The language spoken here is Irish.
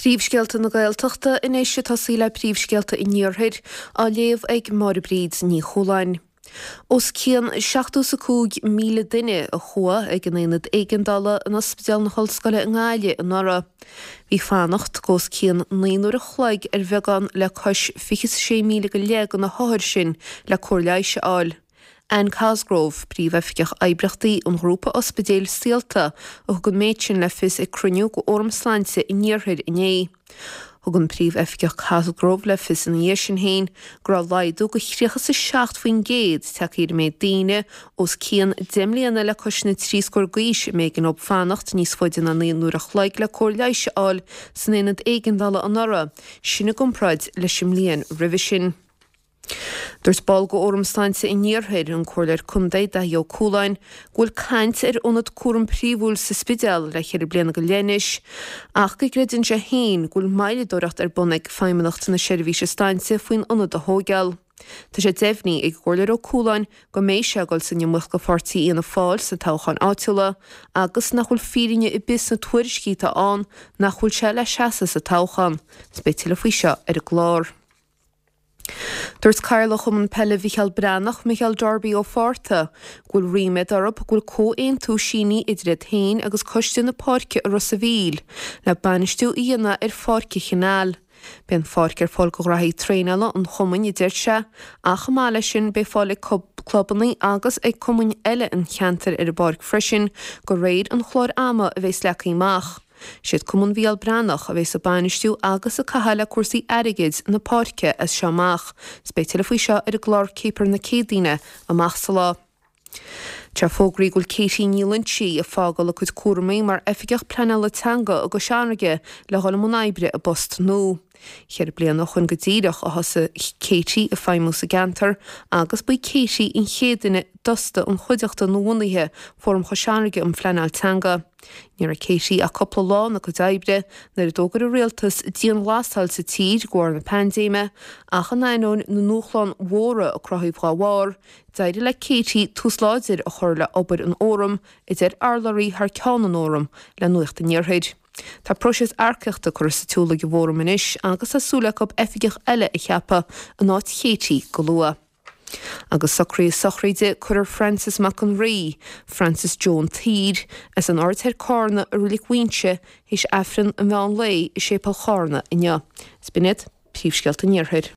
Príomhscéalta na Gaeltachta anois ag tosaí le príomhscéalta an Iarthair, á léamh ag Máire Bríd Ní Chualáin. Os cionn 75,000 duine a chuaigh ag an Aonad Éigeandála in Ospidéal na hOllscoile i nGaillimh anuraidh. Bhí fanacht go os cionn 9 n-uair a chloig ar bheagán le cois 26,000 go leith de na hothair sin le cóir leighis a fháil. Anne Cosgrove, Príomhoifigeach Oibríochtaí an ghrúpa ospidéil Saolta, a thug an méid sin le fios ag cruinniú de Fhóram Sláinte an Iarthair inné. Thug an Príomhoifigeach Cosgrove le fios ina dhiaidh sin féin go raibh laghdú de 37% tagtha ar an méid daoine os cionn 10 mbliana le cois na dtrí scór d'aois a mb'éigean dóibh fanacht níos faide ná 9 n-uair a chloig le cóir leighis a fháil san aonad éigeandála anuraidh, sin i gcomparáid leis an mbliain roimhe sin. Dúirt ball de Fhóram Sláinte an Iarthair, an Comhairleoir Contae Daithí Ó Cualáin, go bhfuil caint ar ionad cúraim príomhúil sa Spidéal le ceithre bliana go leith anois ach go gcreideann sé féin go bhfuil moilleadóireacht ar bun ag Feidhmeannacht na Seirbhíse Sláinte faoin ionad a thóigeáil. Tá sé deimhnithe ag an gComhairleoir Ó Cualáin go mbeidh sé ag dul san iomaíocht do pháirtí Fhianna Fáil sna toghcháin áitiúla agus nach bhfuil fírinne ar bith sna tuairiscí atá ann nach bhfuil sé le seasamh sa toghchán. Beidh tuilleadh faoi seo ar an gclár. Dúirt Cathaoirleach Chumann Peile Mhicheál Breathnach, Micheál Darby Ó Fátharta, go bhfuil ríméad orthu go bhfuil comhaontú sínithe idir iad féin agus Coiste na Páirce i Ros a' Mhíl le bainistiú a dhéanamh ar Pháirc an Chanáil. Beidh an pháirc ar fáil do ghraithí traenála an chumainn, a deir sé, ach chomh maith leis sin beidh fáil ag clubanna agus ag cumainn eile an cheantair ar an bpáirc freisin de réir an chláir ama a bheas leagtha amach. Siad Cumann Mhicheál Breathnach a bheas ag bainistiú agus ag caitheamh le cúrsaí airgid na páirce as seo amach. 'S beidh tuilleadh faoi seo ar an gclár Céipear na Céadaoine amach sa lá. Tá fógraithe go bhfuil Katie Ní Loinsigh ag fágáil a cuid cúramaí mar Oifigeach Pleanála Teanga i gCois Fharraige le dhul i mbun oibre i bpost nua. Cheithre bliana ó shoin go díreach a thosaigh Katie ag feidhmiú sa gceantar agus ba í Katie an chéad duine d'fhostaigh an chuideachta nuabhunaithe, Fóram Chois Fharraige um Phleanáil Teanga. Ní raibh Katie ach cúpla lá ina cuid oibre nuair a d'fhógair an rialtas dianghlasáil sa tír de bharr na paindéime, ach in ainneoin na ndúshlán mhóra a cruthaíodh dá bharr, d'éirigh le Katie tús láidir a chur le obair an Fhóraim, a deir urlabhraí thar ceann an Fhóraim le Nuacht an Iarthair. Tá próiseas earcaíochta curtha sa tsiúl ag an bhFóram anois agus tá súil acu oifigeach eile a cheapadh in áit Katie go luath. Agus socruithe sochraide cuirfear Francis Mac an Rí, Francis Joe an tSaoir, as an Aird Thoir Cárna i Reilig Mhuínse théis Aifreann an mheán lae i Séipéal Chárna inniu. Is b'in iad príomhscéalta an Iarthair.